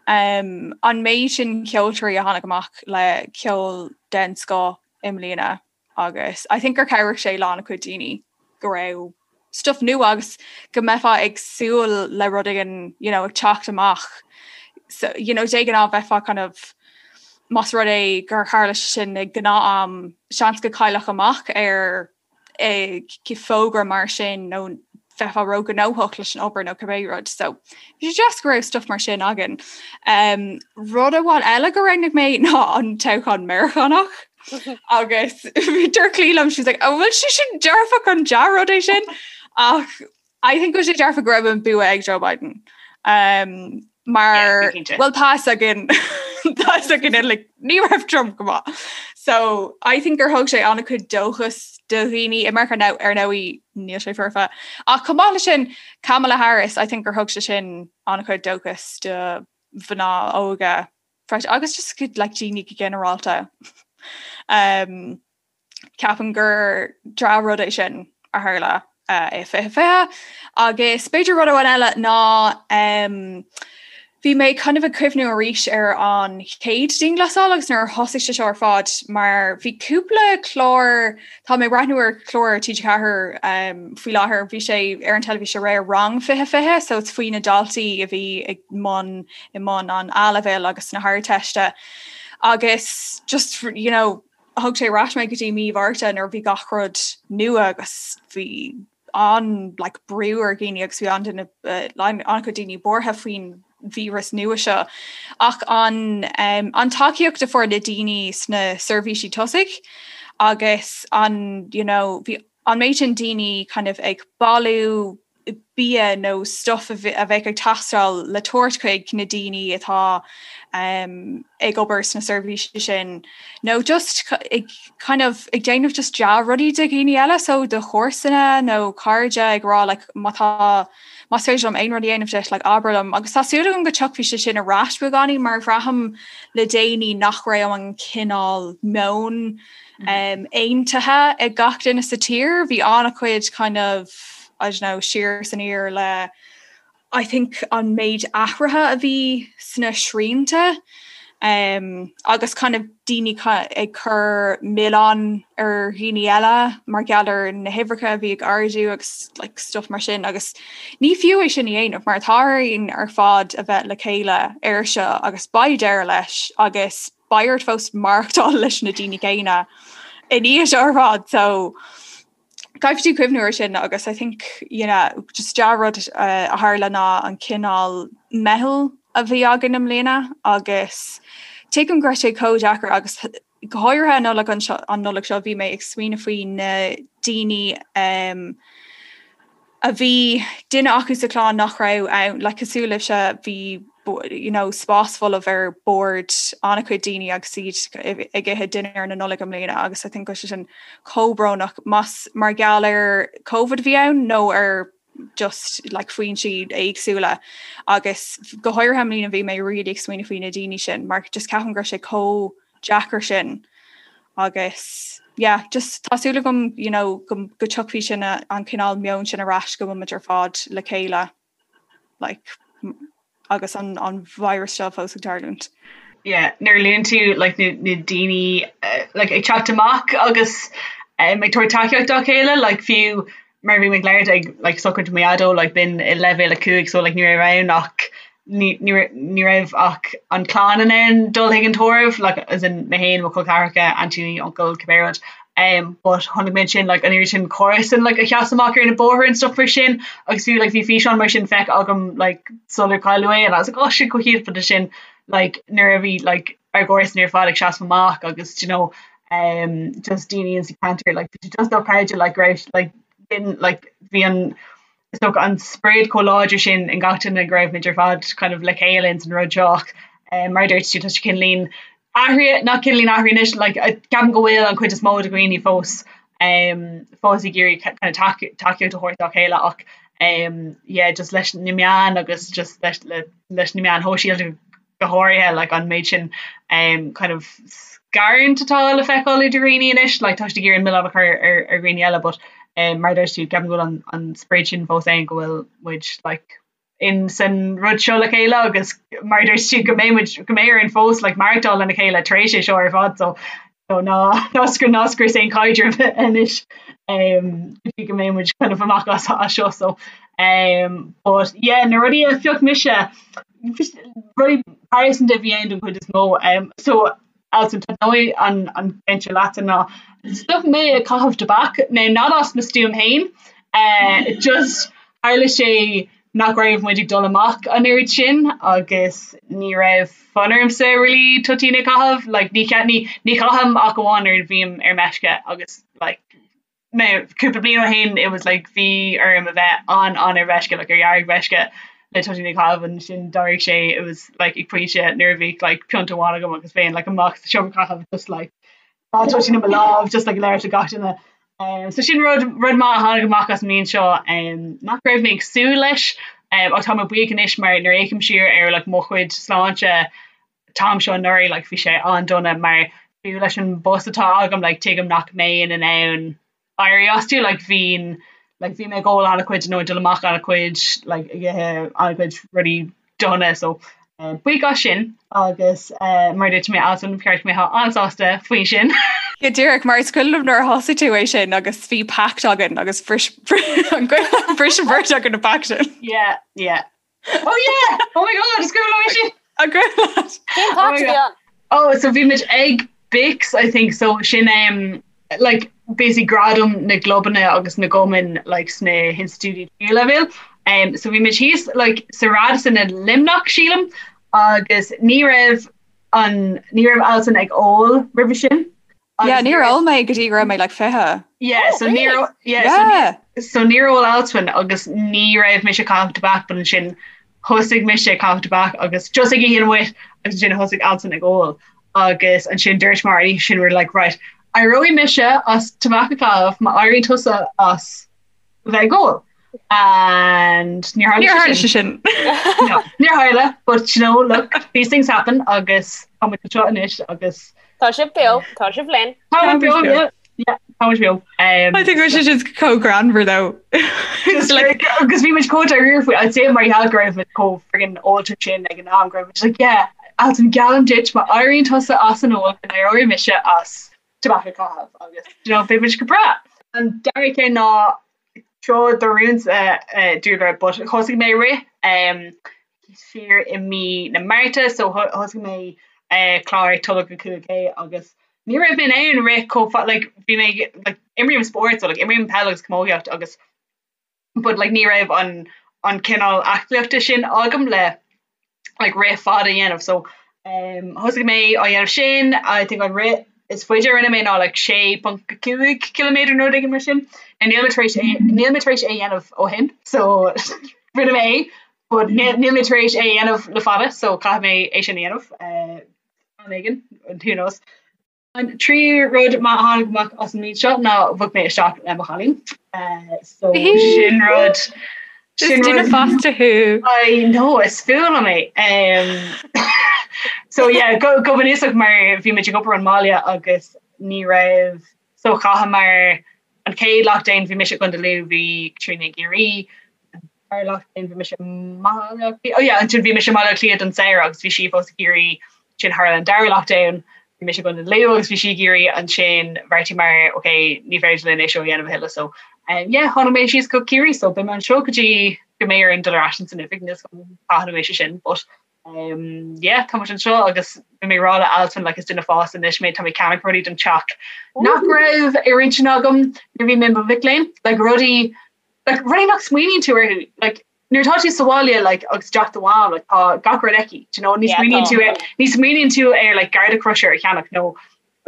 um, an méid sin ceoltóirí a tháinig amach le ceol den scoth i mbliana agus I think gur chabhraigh sé le an-chuid daoine go raibh stuff nua agus go mbeifeá ag súil le rud éigin you know, ag teacht amach. So, you know, de ghnáth bheifeá kind of más rud é gur tharla sé sin ag gnáth-am seans go gcaillfeá amach ar eh, fógra mar sin nó bheifeá róghnóthach leis an obair nó cibé rud. So bhí sé deas go raibh stuff mar sin againn. Um, rud amháin eile go roghnaigh mé ná an toghchán Meiriceánach. agus dúirt Clí liom she's like, oh, bhfuil sé sin dearfach an dea-rud é sin ach I think go sé dearfach go raibh an bua ag Joe Biden. Um, mar well tá againn tá againn like, ní raibh Trump go maith. So I think gur thug sé an-chuid dóchas do dhaoine i Meiriceá now ar ndóigh níl sé foirfe. Ach chomh maith leis sin Kamala Harris, I think gur thug sé sin an-chuid dóchas do mhná óga freisin agus just go like daoine go ginearálta. Um, ceapaim gur dea-rud é sin a tharla uh, i 2020 agus b'fhéidir rud amháin eile ná um, bhí mé kind of ag cuimhniú arís ar an chéad dianghlasáil agus nuair a thosaigh sé seo ar fad mar bhí cúpla clár Tá mé ag breathnú ar chlár TG4 um, faoi láthair, bhí sé ar an teilifís aréir Rang 2020, so it's faoi na daltaí a bhí ag mbun i mbun an A-leibhéil agus na hArdteiste. Agus just you know, thug sé ar ais mé go dtí mí Mhárta nuair a bhí gach rud nua agus bhí an like, brú ar dhaoine agus bhí an-duine uh, an-chuid daoine buartha faoin víreas nua seo ach an um, an tacaíocht a fuair na daoine sna seirbhísí tosaigh agus an you know, bhí an méid sin daoine kind of ag bailiú bia nó stuff a bheadh ag teastáil le tabhairt chuig na daoine atá ag obair sna seirbhísí sin nó just ag kind of ag déanamh just dea-rudaí do dhaoine eile so do chomharsana nó cairde ag rá like má tá más féidir liom aon rud a dhéanamh duit like abair liom agus tá súil agam go dtiocfaidh sé sin ar ais beagáinín mar bhraithim le déanaí nach raibh an cineál meon um, aontaithe ag gach duine sa tír bhí an-chuid kind of I don't know siar is aniar le I think an méid athruithe a bhí sna srianta um, agus kind of daoine ag cur milleán ar dhaoine eile mar gheall ar na huimhreacha a bhí ag ardú agus like, stuff mar sin agus ní fiú é sin a dhéanamh mar tá orainn ar fad a bheith le chéile air seo agus beidh deireadh leis agus beidh ort fós maireachtáil leis na daoine céanna i ndiaidh seo ar fad so caithfidh tú cuimhniú ar sin agus I think you know, just dea-rud uh, a tharla ná an cineál meitheal a bhí againn i mbliana agus tuigim go raibh sé chomh deacair agus go háirithe an Nollaig anseo an Nollaig seo bhí mé ag smaoineamh faoi na daoine um, a bhí duine acu sa chlann nach raibh ann, like cosúil libhse bhí you know spás folamh ar bord an-chuid daoine agus iad ag ithe dinnéar na Nollag i mbliana agus I think go raibh sé sin chomh brónach más mar gheall ar Covid a bhí ann nó ar just like foinsí éagsúla agus go háirithe i mbliana bhí mé really ag smaoineamh faoi na daoine sin mar just ceapaim go raibh sé chomh deacair sin agus yeah just tá súil agam you know go go dtiocfaidh sin an cineál meon sin ar ais go bhfuil muid ar fad le chéile like agus an an virus seo fós ag tarlúint.
Yeah, nuair a luann tú like na na daoine uh, like ag teacht amach agus um, ag tabhairt tacaíocht dá chéile like fiú mar bhí mé ag labhairt ag like sochraid mo dhaideo like b'in i leibhéal 5 so like ní raibh ann ach ní ní ní raibh ach an clann in ann dul chuig an tórramh like as in mé féin mo chol ceathracha aintíní uncail cibé rud um but chonaic mé ansin like an oiread sin comharsan like a sheas amach ar na bóithre and stuff mar sin agus fiú like bhí físeán mar sin feicthe agam like sular cailleadh é and I was like oh shit chomh hiontach but sin like nuair a bhí like ár gcomharsain ar fad ag seasamh amach agus do you know um just daoine in sa ceantar like bhí sé just dochreidte like go raibh like b'in like bhí an is dócha an sprid chomh láidir sin in gach duine go raibh muid ar fad kind of le chéile ins an rud seo ach um mar a dúirt tú tá sé cineáilín athraithe nach cineáilín athraithe anois like ceapaim go bhfuil an chuid is mó de dhaoine fós um fós ag iarraidh kind of tacaíocht a thabhairt dá chéile ach um yeah just leis na meáin agus just leis le leis na meáin shóisialta go háirithe like an méid sin um kind of scarúint atá le feiceáil idir dhaoine anois like tá siad ag iarraidh an milleán a chur ar ar dhaoine eile but um mar a dúirt tú ceapaim go bhfuil an an sprid sin fós ann go bhfuil muid like in san rud seo le chéile agus mar a dúirt tú go mbeidh muid go mbeidh orainn fós like maireachtáil lena chéile tar éis é seo ar fad so so ná ná scr ná scrios aon chaidreamh anois um go dtí go mbeidh muid kind of amach as as seo so um but yeah na rudaí a phioc mise rudaí pearsanta a bhí ann don chuid is mó um so Alison tá dóigh an an ceann seo leatsa ná stop mé ag caitheamh tobac now not as mo stuaim féin uh just tharla sé nach raibh muid ag dul amach an oiread sin agus ní raibh fonn ormsa really toitín a chaitheamh like ní ní ní chaithim ach amháin nuair a bhím ar meisce agus like mé cúpla bliain ó shin it was like bhí orm a bheith an an ar mheisce like ar dheargmheisce le toitín a chaitheamh ansin d'éirigh sé it was like ag pointe nuair a bhí like pionta amháin agam agus bheinn like amach sa seomra caitheamh just like Tá toitín i mo lámh just like ag labhairt le gach duine. Um, so sin rud rud maith a tháinig amach as an mbliain seo um, nach raibh mé ag súil leis um, ach tá mé buíoch anois mar nuair a fhéachaim siar ar like, mo chuid sláinte an t-am seo anuraidh like, bhí sé an-dona mar fiú leis an bpost atá agam like, tuigim nach mbeinn in ann éirí astu like bhínn like bhí mé ag ól an-chuid nó ag dul amach an-chuid like ag ithe an-chuid rudaí dona so eh, buíoch as sin agus eh, mar dúirt mé Alison ba cheart go mbeifeá an-sásta faoi sin.
Go díreach mar is cuimhin liom nuair a thosaigh tú é sin agus bhí pact againn agus bhris an bhris an bheirt againn an pact sin.
Yeah, yeah. Oh yeah! Oh my god, is cuimhin liom é sin!
An cuimhin leat?
Cén pact a bhí ann?
Oh, so bhí muid ag BICS, I think, so sin um, like, basically gradam na gclubanna agus na gcumann like, sna hinstitiúidí tríú leibhéal. Um, so bhí muid thíos like, sa Radisson i Luimneach, sílim, agus ní raibh an ní raibh Alison ag ól roimhe sin.
Yeah, níor ól mé go dtí go raibh mé like 20.
Yeah, oh, so really? yeah, yeah. So, so níor ól Alswyn agus ní raibh mise ag caitheamh tobac but ansin thosaigh mise ag caitheamh tobac agus just ag oíche amuigh agus ansin thosaigh Alswyn ag ól agus ansin dúirt mar sin we're like right éireoidh mise as tobac a chaitheamh má éiríonn tusa as bheith ag ól. And níor tharla sé
sin.
No, níor tharla, but you know, look, these things happen agus tá muid anseo anois agus
Tá sibh beo, tá sibh linn.
Tá muid beo, yeah. Yeah, tá muid beo.
Um, I think we should just chomh greannmhar though.
Just like agus bhí muid chomh dáiríre faoi I'd say mar gheall go raibh muid chomh friggin ólta sin ag an am go raibh muid like yeah, Alswyn geallaim duit má éiríonn tusa as an ól go n-éireoidh mise as tobac a chaitheamh agus you know, beidh muid go breá. An dara ceann ná seo do rún-sa Dúlra but thosaigh mé rith um, siar i mí na Márta so thosaigh mé uh, clár Tolg 5K agus ní raibh mé in ann rith chomh like bhí mé like imrím spórt so like imrím peil agus camógaíocht agus but like ní raibh an an cineál aclaíochta sin agam le like rith fada a dhéanamh so um thosaigh mé á dhéanamh sin I think an rith is faide a rinne mé ná like 6.5 km nó rud éigin mar sin and níl mé tar éis é níl mé tar éis é a dhéanamh ó shin so rinne mé é but níl níl mé tar éis é a dhéanamh le fada so caithfidh mé é sin a dhéanamh uh, am éigin who knows. An tríú rud maith a tháinig amach as an mbliain seo ná bhog mé isteach le mo chailín. So sin rud
sin duine fásta
thú. I know is fuath liom é. So yeah, go go bunúsach mar bhí muid ag obair ón mbaile agus ní raibh so chaitheamar an chéad lockdown bhí mise i gContae Lú bhí Caitríona i gCiarraí dara lockdown bhí mise i mBaile Átha Cliath oh yeah ansin bhí mise i mBaile Átha Cliath don samhradh agus bhí sí fós i gCiarraí ansin tharla an dara lockdown bhí mise i gContae Lú agus bhí sí i gCiarraí ansin bheartaíomar ok ní féidir linn é seo a dhéanamh a thuilleadh so um, yeah tháinig mé síos go Ciarraí so beidh mé anseo go dtí go mbeidh orainn dul ar ais san oifig níl a fhios agam cathain a bheidh sé sin but um, yeah tá muid anseo agus bhí mé ag rá le Alswyn like is duine fásta anois mé tá mé ag ceannach rudaí don teach nach raibh ar intinn agam nuair a bhí mé i mo mhic léinn like rudaí like rudaí nach smaoiníonn tú orthu like nuair atá tú sa bhaile like agus i dteach do mham like tá gach rud aici do you know ní smaoiníonn tú ar ní smaoiníonn tú ar like garda crusher a cheannach nó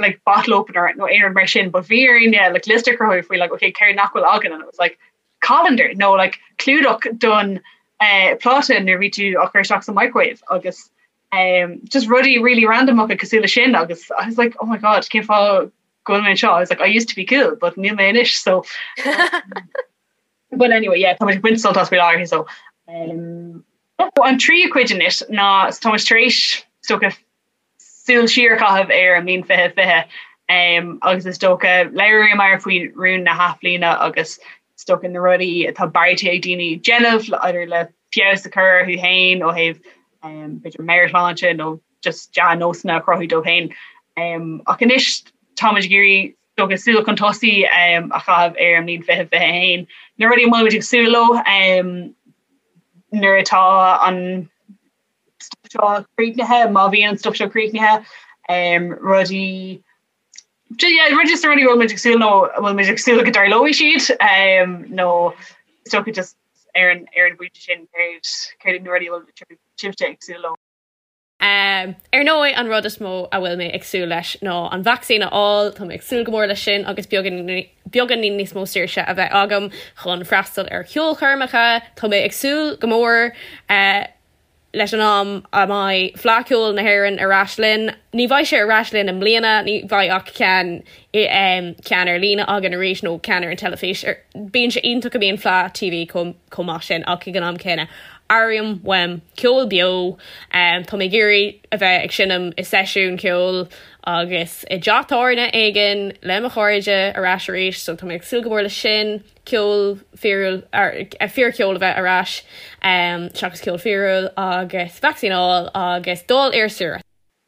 like bottle opener nó aon rud mar sin but bhí orainn yeah, like liosta a chruthú faoi like okay céard nach bhfuil againn and it was like colander nó like clúdach don uh, pláta nuair bhí tú á chur isteach sa microwave agus um, just rudaí really randomacha cosúil le sin agus I was like oh my god cén fáth go bhfuil mé anseo I was like I used to be cool but níl mé anois so but anyway yeah tá muid ag baint sult as faoi láthair so um, an tríú cuid anois ná so tá muid tar éis is dócha súil siar a chaitheamh ar an mbliain 2020 um, agus is dócha labhraíomar faoi rún na hathbhliana agus is dócha na rudaí atá beartaithe ag daoine déanamh idir le feabhas a chur orthu féin ó thaobh um, b'fhéidir meabhairshláinte nó just dea-nósanna a chruthú dóibh féin. Ach anois táimid ag iarraidh is dócha súil chun tosaigh a chaitheamh ar an mbliain 2021. Na rudaí a bhfuil muid ag súil leo nuair atá an stuif seo críochnaithe, má bhíonn an stuif seo críochnaithe, rudaí yeah, just na rudaí a bhfuil muid ag súil nó a bhfuil muid ag súil go dtarlóidh siad nó is dócha just ar an ar an bpointe sin céard céard iad na rudaí a bhfuil sibhse ag súil leo.
Ar ndóigh, an rud is mó a bhfuil mé ag súil leis ná an vacsaín a fháil, tá mé ag súil go mór leis sin agus beagáinín níos mó saoirse a bheith agam chun freastal ar cheolchoirmeacha. Tá mé ag súil go mór leis an am a mbeidh Fleadh Cheoil na hÉireann ar ais linn. Ní bheidh sé ar ais linn i mbliana, ní bheidh ach ceann ceann ar líne againn arís nó ceann ar an teilifís. Bíonn sé iontach go mbíonn Fleadh TV chomh maith sin ach ag an am céanna airím uaim ceol beo. Tá mé ag iarraidh a bheith ag seinm i seisiún ceoil agus i dteach tábhairne éigin le mo chairde ar ais arís so tá mé ag súil go mór leis sin, ceol fíorúil, fíorcheol a bheith ar ais seachas ceol fíorúil agus vacsaín a fháil agus dul ar saoire.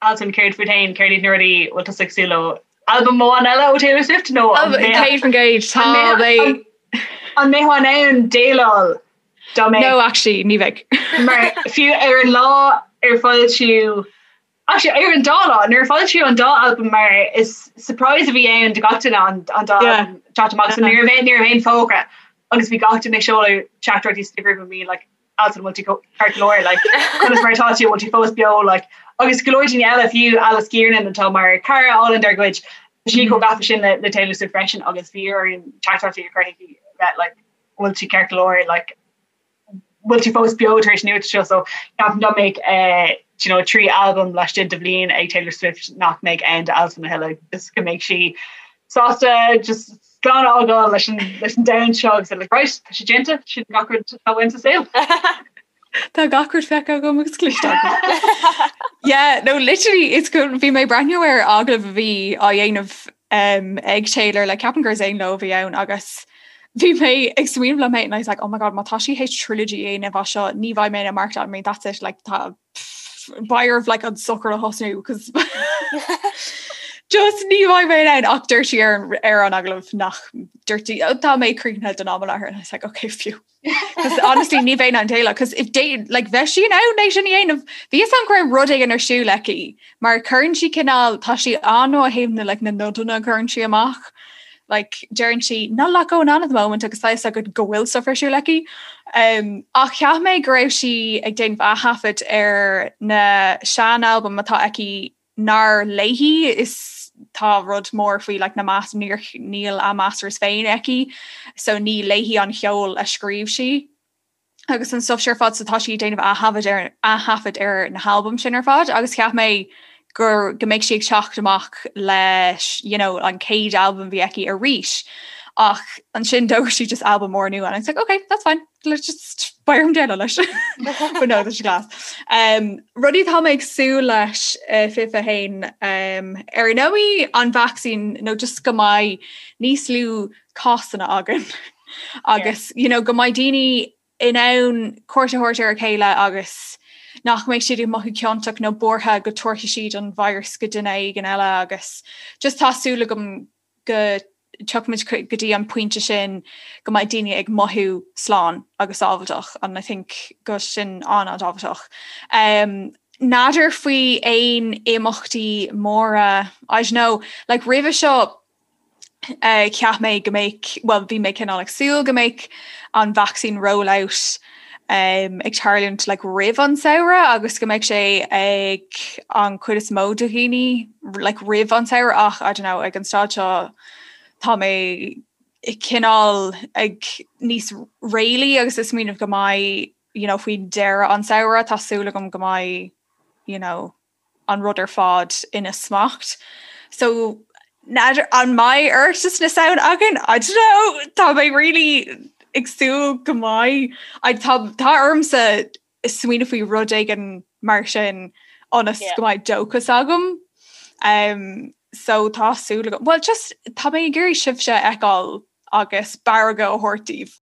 Alswyn, céard fút féin, céard iad na rudaí a bhfuil tusa ag súil leo? Albam amháin eile ó Taylor Swift nó an
100% tá mé
an mbeifeá in ann déileáil
dá mbeadh No actually ní bheidh.
Mar fiú ar an lá ar foilsíodh actually ar an dá lá nuair a foilsíodh an dá albam mar is surprise a bhí ann do gach duine an an dá albam teacht amach so ní raibh ní raibh aon fógra agus bhí gach duine ag seoladh teachtaireachtaí sna grúpaí bhí like Alswyn an bhfuil tú ceart go leor like conas mar atá tú an bhfuil tú fós beo like agus go leor daoine eile fiú Alice Kiernan atá mar cara álainn dár gcuid. Tá sí chomh gafa sin le Taylor Swift freisin agus bhí orainn teachtaireachtaí a chur chuici bheith like bhfuil tú ceart go leor like bhfuil tú fós beo tar éis an nuacht seo so ceapaim dá mbeadh eh, you know, 3 albam laistigh de bhliain ag Taylor Swift nach mbeadh aon d'albam a thuilleadh just go mbeadh sí sásta just slán a fhágáil leis an leis an domhan seo agus like, right, tá sé déanta sin gach rud atá uaim sa saol.
Tá gach rud feicthe agam agus cloiste agam. Yeah, no, literally, it's go bhí mé ag breathnú ar agallamh a bhí á dhéanamh um, ag Taylor le ceapaim gur Zane Lowe a bhí ann agus bhí mé ag smaoineamh liom féin and I was like, oh my god, má tá sí théis trilogy a dhéanamh as seo, ní bheidh mé in ann maireachtáil, I mean, that's it, like, tá beidh orm like an sochar a thosnú cos just ní bheidh mé in ann ach dúirt sí ar an ar an agallamh nach dúirt sí "Oh, tá mé críochnaithe don am i láthair and I was like, okay, phew. Cos honestly ní bheinn in ann déileáil cos if they like bheadh sí in ann é sin a dhéanamh bhí fhios agam go raibh rud éigin ar siúl aici mar cuireann sí cineál tá sí an-ó thaobh na like na nodanna a chuireann sí amach like deireann sí not a lot going on at the moment agus tá fhios agat go bhfuil stuff ar siúl aici. Um, ach cheap mé go raibh sí ag déanamh aththaifead ar na sean-albaim atá aici nár léi is tá rud mór faoi like, na mas níor níl a masters féin aici so ní léi an cheol a scríobh sí agus an stuff sin ar fad so tá sí ag déanamh aththaifead ar aththaifead ar na halbaim sin ar fad agus cheap mé gur go mbeidh sí ag teacht amach leis you know, an chéad albam a bhí aici arís ach ansin d'fhógair sí just albam mór nua and I was like okay that's fine let's just beidh orm déileáil leis but no tá sé class. Um, rudaí atá mé ag súil leis uh, 21 um, ar ndóigh an vaccine nó just go mbeidh níos lú cásanna againn agus you know, go mbeidh daoine in ann cuairt a thabhairt ar a chéile agus nach mbeidh siad ag mothú ciontach nó buartha go dtabharfaidh siad an virus go duine éigin eile agus just tá súil agam go dtiocfaimid go dtí an pointe sin go mbeidh daoine ag mothú slán agus sábháilteach and I think go sin an-an-tábhachtach. Um, N'fheadar faoi aon imeachtaí móra, I don't know, like roimhe seo uh, cheap mé go mbeadh, well bhí mé cineál ag súil go mbeadh an vaccine rollout um, ag tarlúint like, roimh an samhradh agus go mbeadh sé ag an chuid is mó de dhaoine like, roimh an samhradh ach I don't know, ag an staid seo tá mé cineál ag níos réalaí agus ag smaoineamh go mbeidh you know, faoi deireadh an samhradh tá súil agam go mbeidh you know, an rud ar fad ina smacht. So n'fheadar an mbeidh Oireachtas na Samhna againn? I don't know, tá mé really ag súil go mbeidh. I tá tá ormsa smaoineamh faoi rud éigin mar sin ionas go mbeidh dóchas agam. Um, so tá súil agam. Well just tá mé ag iarraidh sibhse a fheiceáil agus barraga a thabhairt daoibh.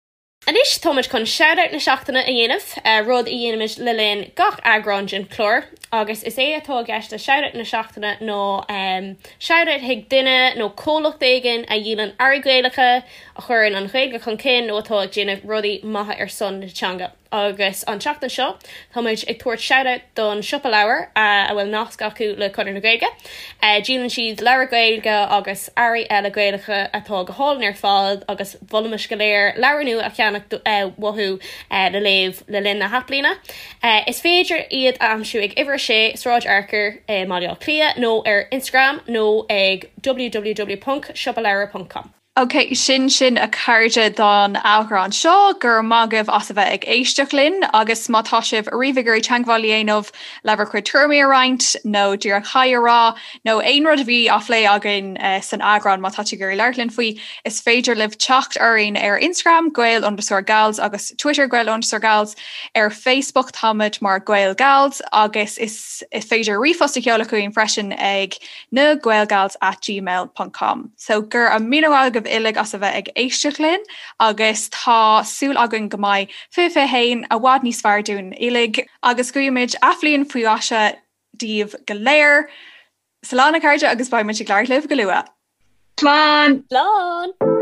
Anois táimid chun Shoutout na Seachtaine a dhéanamh, rud a dhéanaimid le linn gach eagrán den chlár, agus is é atá i gceist le Shoutout na Seachtaine ná shoutout chuig duine nó comhlacht éigin a dhíolann earraí Gaelacha, a chuireann an Ghaeilge chun cinn nó atá ag déanamh rudaí maithe ar son na teanga. Agus an tseachtain seo, táimid ag tabhairt shoutout don Siopa Leabhar, a bhfuil nasc acu le Conradh na Gaeilge. Díolann siad leabhair Ghaeilge agus earraí eile Gaelacha atá go hálainn ar fad agus mholfaimis go léir leabhar nua a cheannach uathu le léamh le linn na hathbhliana. Is féidir iad a aimsiú ag Uimhir 6, Sráid Fhearchair i mBaile Átha Cliath nó ar Instagram nó ag www.siopaleabhar.com.
Ok, sin sin a chairde don eagrán seo, go raibh maith agaibh as a bheith ag éisteacht linn agus má tá sibh ariamh ag iarraidh teagmháil a dhéanamh le bhur gcuid tuairimí a roinnt nó díreach haigh a rá nó aon rud a bhí á phlé againn san eagrán má tá tú ag iarraidh labhairt linn faoi, is féidir libh teacht orainn ar Instagram gael underscore gals agus Twitter gael underscore gals, ar Facebook táimid mar Gael Gals agus is féidir ríomhphost a sheoladh chugainn freisin ag na gaelgals at gmail ponc com. So go raibh míle maith agaibh uilig as a bheith ag éisteacht linn agus tá súil againn go mbeidh 2021 i bhfad níos fearr dúinn uilig agus guímid athbhliain faoi mhaise daoibh go léir. Slán a chairde agus beidh muid ag labhairt libh go luath.
Slán!
Slán!